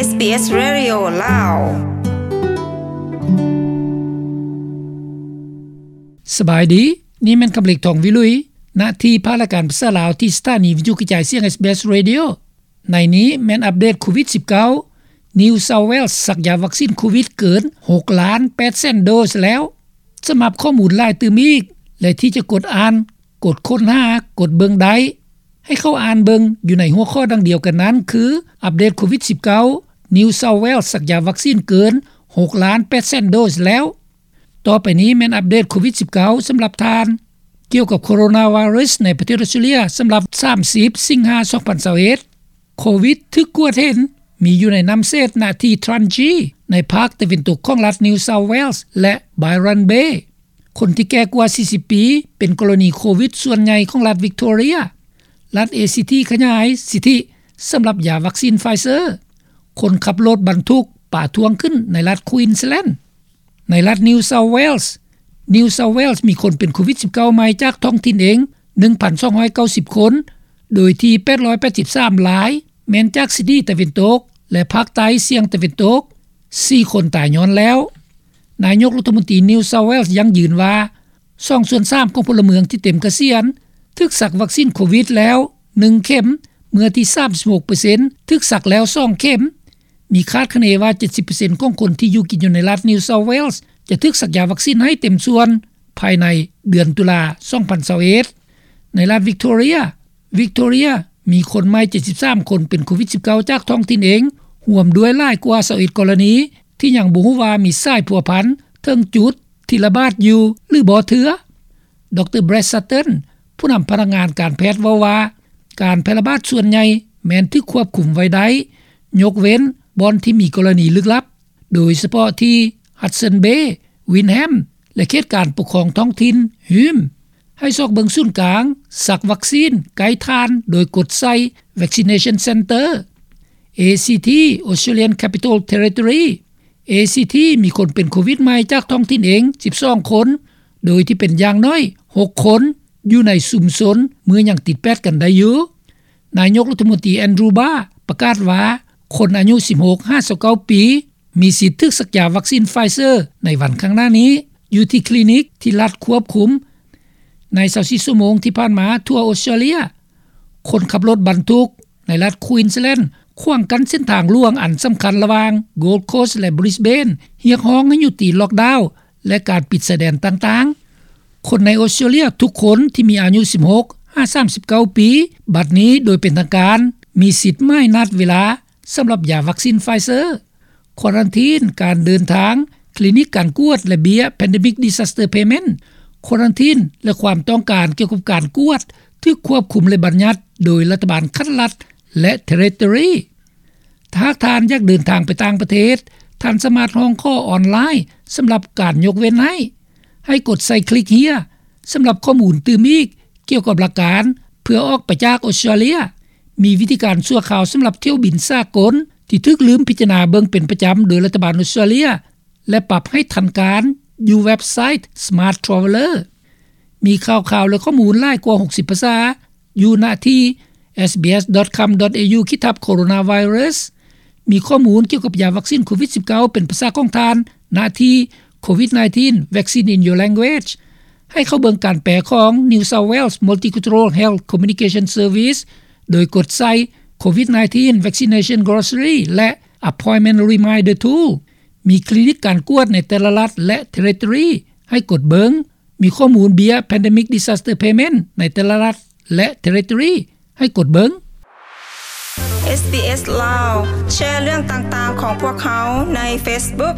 ເອສບີເອສ ເຣດິໂອ ລາວ. ສະບາຍດີ, ນີ້ແມ່ນຄຳເລັກ ທອງວິລຸຍ ນະທີ່ພາກລາຍການພາສາລາວ ທີ່ສະຖານີວິທະຍຸກະຈາຍສຽງ ເອສບີເອສ ເຣດິໂອ. ໃນນີ້ແມ່ນອັບເດດໂຄວິດສິບເກົ້າ, New South Wales ສັກຢາວັກຊີນໂຄວິດເກີນຫົກລ້ານແປດແສນໂດສແລ້ວ. ສຳລັບຂໍ້ມູນຫຼາຍຕື່ມອີກ ແລະ ທີ່ຈະກົດອ່ານ, ກົດຄົ້ນຫາ, ກົດເບິ່ງໄດ້, ໃຫ້ເຂົ້າອ່ານເບິ່ງຢູ່ໃນຫົວຂໍ້ດັ່ງດຽວກັນນັ້ນ ຄື ອັບເດດໂຄວິດສິບເກົ້າ, New South Wales ສັກຢາວັກຊີນເກີນຫົກລ້ານແປດແສນໂດສແລ້ວ. ຕໍ່ໄປນີ້ແມ່ນອັບເດດໂຄວິດສິບເກົ້າ ສຳລັບທ່ານ. ກ່ຽວກັບໂຄໂຣນາໄວຣັສໃນປະເທດອົດສະຕຣາເລຍ ສຳລັບສາມສິບສິງຫາ ສອງພັນຊາວເອັດ ໂຄວິດຖືກກວດເຫັນມີຢູ່ໃນນ້ຳເສດນະທີ່ Trangie ໃນພາກຕາເວັນຕົກຂອງລັດ New South Wales ແລະ Byron Bay. ຄົນທີ່ແກ່ກວ່າສີ່ສິບປີ ເປັນກໍລະນີໂຄວິດສ່ວນໃຫຍ່ຂອງລັດ Victoria. ລັດ ACT ຂະຫຍາຍສິດທິສຳລັບຢາວັກຊີນ Pfizer. ຄົນຂັບລົດບັນທຸກປາທ້ວງຂຶ້ນໃນລັດ Queensland. ໃນລັດ New South Wales, New South Wales ມີຄົນເປັນໂຄວິດສິບເກົ້າໃໝ່ຈາກທ້ອງຖິ່ນເອງ ໜຶ່ງພັນສອງຮ້ອຍເກົ້າສິບຄົນ, ໂດຍທີ່ແປດຮ້ອຍແປດສິບສາມລາຍແມ່ນຈາກຊິດນີຕາເວັນຕົກ ແລະ ພາກໃຕ້ສ່ຽງຕາເວັນຕົກ, ສີ່ຄົນຕາຍຍ້ອນແລ້ວ. ນາຍົກລັດຖະມົນຕີ New South Wales ຢັ້ງຢືນວ່າ ສອງສ່ວນສາມຂອງພົນລະເມືອງທີ່ເຕັມກະສຽນຖືກສັກວັກຊີນໂຄວິດແລ້ວໜຶ່ງເຂັມ, ເມືອທີ່ສາມສິບຫົກເປີເຊັນຖືກສັກແລ້ວສອງເຂັມ. ມີຄາດຄະເນວ່າເຈັດສິບເປີເຊັນຂອງຄົນທີ່ຢູ່ກິນຢູ່ໃນລັດ New South Wales ຈະຖືກສັກຢາວັກຊີນໃຫ້ເຕັມສ່ວນພາຍໃນເດືອນຕຸລາ ສອງພັນຊາວເອັດ. ໃນລັດ Victoria, Victoria ມີຄົນໃໝ່ເຈັດສິບສາມຄົນເປັນໂຄວິດສິບເກົ້າຈາກທ້ອງຖິ່ນເອງ, ຮ່ວມດ້ວຍຫຼາຍກວ່າຊາວເອັດກໍລະນີ ທີ່ຍັງບໍ່ຮູ້ວ່າມີສາຍພົວພັນເຖິງຈຸດທີ່ລະບາດຢູ່ຫຼືບໍ່ເທື່ອ. ດຣ. Brad Sutton ຜູ້ນຳພະນັກງານການແພດເວົ້າວ່າ ການແຜ່ລະບາດສ່ວນໃຫຍ່ແມ່ນຖືກຄວບຄຸມໄວ້ໄດ້, ຍົກເວັ້ນບ່ອນທີ່ມີກໍລະນີລຶກລັບ, ໂດຍສະເພາະທີ່ Hudson Bay, Wyndham ແລະ ເຂດການປົກຄອງທ້ອງຖິ່ນ Hume. ໃຫ້ຊອກເບິ່ງສູນກາງສັກວັກຊີນໃກ້ທ່ານໂດຍກົດໃສ່ Vaccination Centre. ACT, Australian Capital Territory, ACT ມີຄົນເປັນໂຄວິດໃໝ່ຈາກທ້ອງຖິ່ນເອງສິບສອງຄົນ, ໂດຍທີ່ເປັນຢ່າງໜ້ອຍຫົກຄົນຢູ່ໃນຊຸມຊົນເມື່ອຍັງຕິດແປດກັນໄດ້ຢູ່. ນາຍົກລັດຖະມົນຕີ Andrew Barr ປະກາດວ່າ ຄົນອາຍຸສິບຫົກຫາຊາວເກົ້າປີ ມີສິດຖືກສັກຢາວັກຊີນ Pfizer ໃນວັນຂ້າງໜ້ານີ້ ຢູ່ທີ່ຄລີນິກທີ່ລັດຄວບຄຸມ. ໃນຊາວສີ່ຊົ່ວໂມງທີ່ຜ່ານມາທົ່ວອົດສະຕຣາເລຍ, ຄົນຂັບລົດບັນທຸກໃນລັດ Queensland ຂວາງກັ້ນເສັ້ນທາງຫຼວງອັນສຳຄັນລະຫວ່າງ Gold Coast ແລະ Brisbane, ຮຽກຮ້ອງໃຫ້ຍຸຕິລັອກດາວ ແລະ ການປິດຊາຍແດນຕ່າງໆ. ຄົນໃນອົດສະຕຣາເລຍທຸກຄົນທີ່ມີອາຍຸສິບຫົກຫາສາມສິບເກົ້າປີ ບັດນີ້ໂດຍເປັນທາງການມີສິດໝາຍນັດເວລາສຳລັບຢາວັກຊີນ Pfizer. ຄວາຣັນທີນການເດີນທາງ, ຄລີນິກການກວດ ແລະ ເບ້ຍ Pandemic Disaster Payment. ຄວາຣັນທີນ ແລະ ຄວາມຕ້ອງການກ່ຽວກັບການກວດຖືກຄວບຄຸມ ແລະ ບັນຍັດໂດຍລັດຖະບານຂັ້ນລັດ ແລະ Territory. ຖ້າຫາກທ່ານຢາກເດີນທາງໄປຕ່າງປະເທດ, ທ່ານສາມາດຮ້ອງຂໍອອນລາຍສຳລັບການຍົກເວັ້ນໃຫ້. ໃຫ້ກົດໃສ່ຄລິກ Here ສຳລັບຂໍ້ມູນຕື່ມອີກກ່ຽວກັບຫຼັກການເພື່ອອອກໄປຈາກອົດສະຕຣາເລຍ. ມີວິທີການຊົ່ວຄາວສຳລັບຖ້ຽວບິນສາກົນທີ່ຖືກລືມພິຈາລະນາເບິ່ງເປັນປະຈຳໂດຍລັດຖະບານອົດສະຕຣາເລຍ ແລະ ປັບໃຫ້ທັນການຢູ່ເວັບໄຊ Smart Traveller. ມີຂ່າວຄາວ ແລະ ຂໍ້ມູນຫຼາຍກວ່າຫົກສິບພາສາຢູ່ນະທີ່ SBS.com.au ຂີດທັບ Coronavirus. ມີຂໍ້ມູນກ່ຽວກັບຢາວັກຊີນໂຄວິດສິບເກົ້າເປັນພາສາຂອງທ່ານນະທີ່ COVID nineteen Vaccine in Your Language. ໃຫ້ເຂົ້າເບິ່ງການແປຂອງ New South Wales Multicultural Health Communication Service ໂດຍກົດໃສ່ COVID nineteen Vaccination Glossary ແລະ Appointment Reminder Tool. ມີຄລີນິກການກວດໃນແຕ່ລະລັດ ແລະ Territory ໃຫ້ກົດເບິ່ງ. ມີຂໍ້ມູນເບ້ຍ Pandemic Disaster Payment ໃນແຕ່ລະລັດ ແລະ Territory ໃຫ້ກົດເບິ່ງ. SBS ລາວ ແຊເລື່ອງຕ່າງໆຂອງພວກເຮົາໃນ Facebook.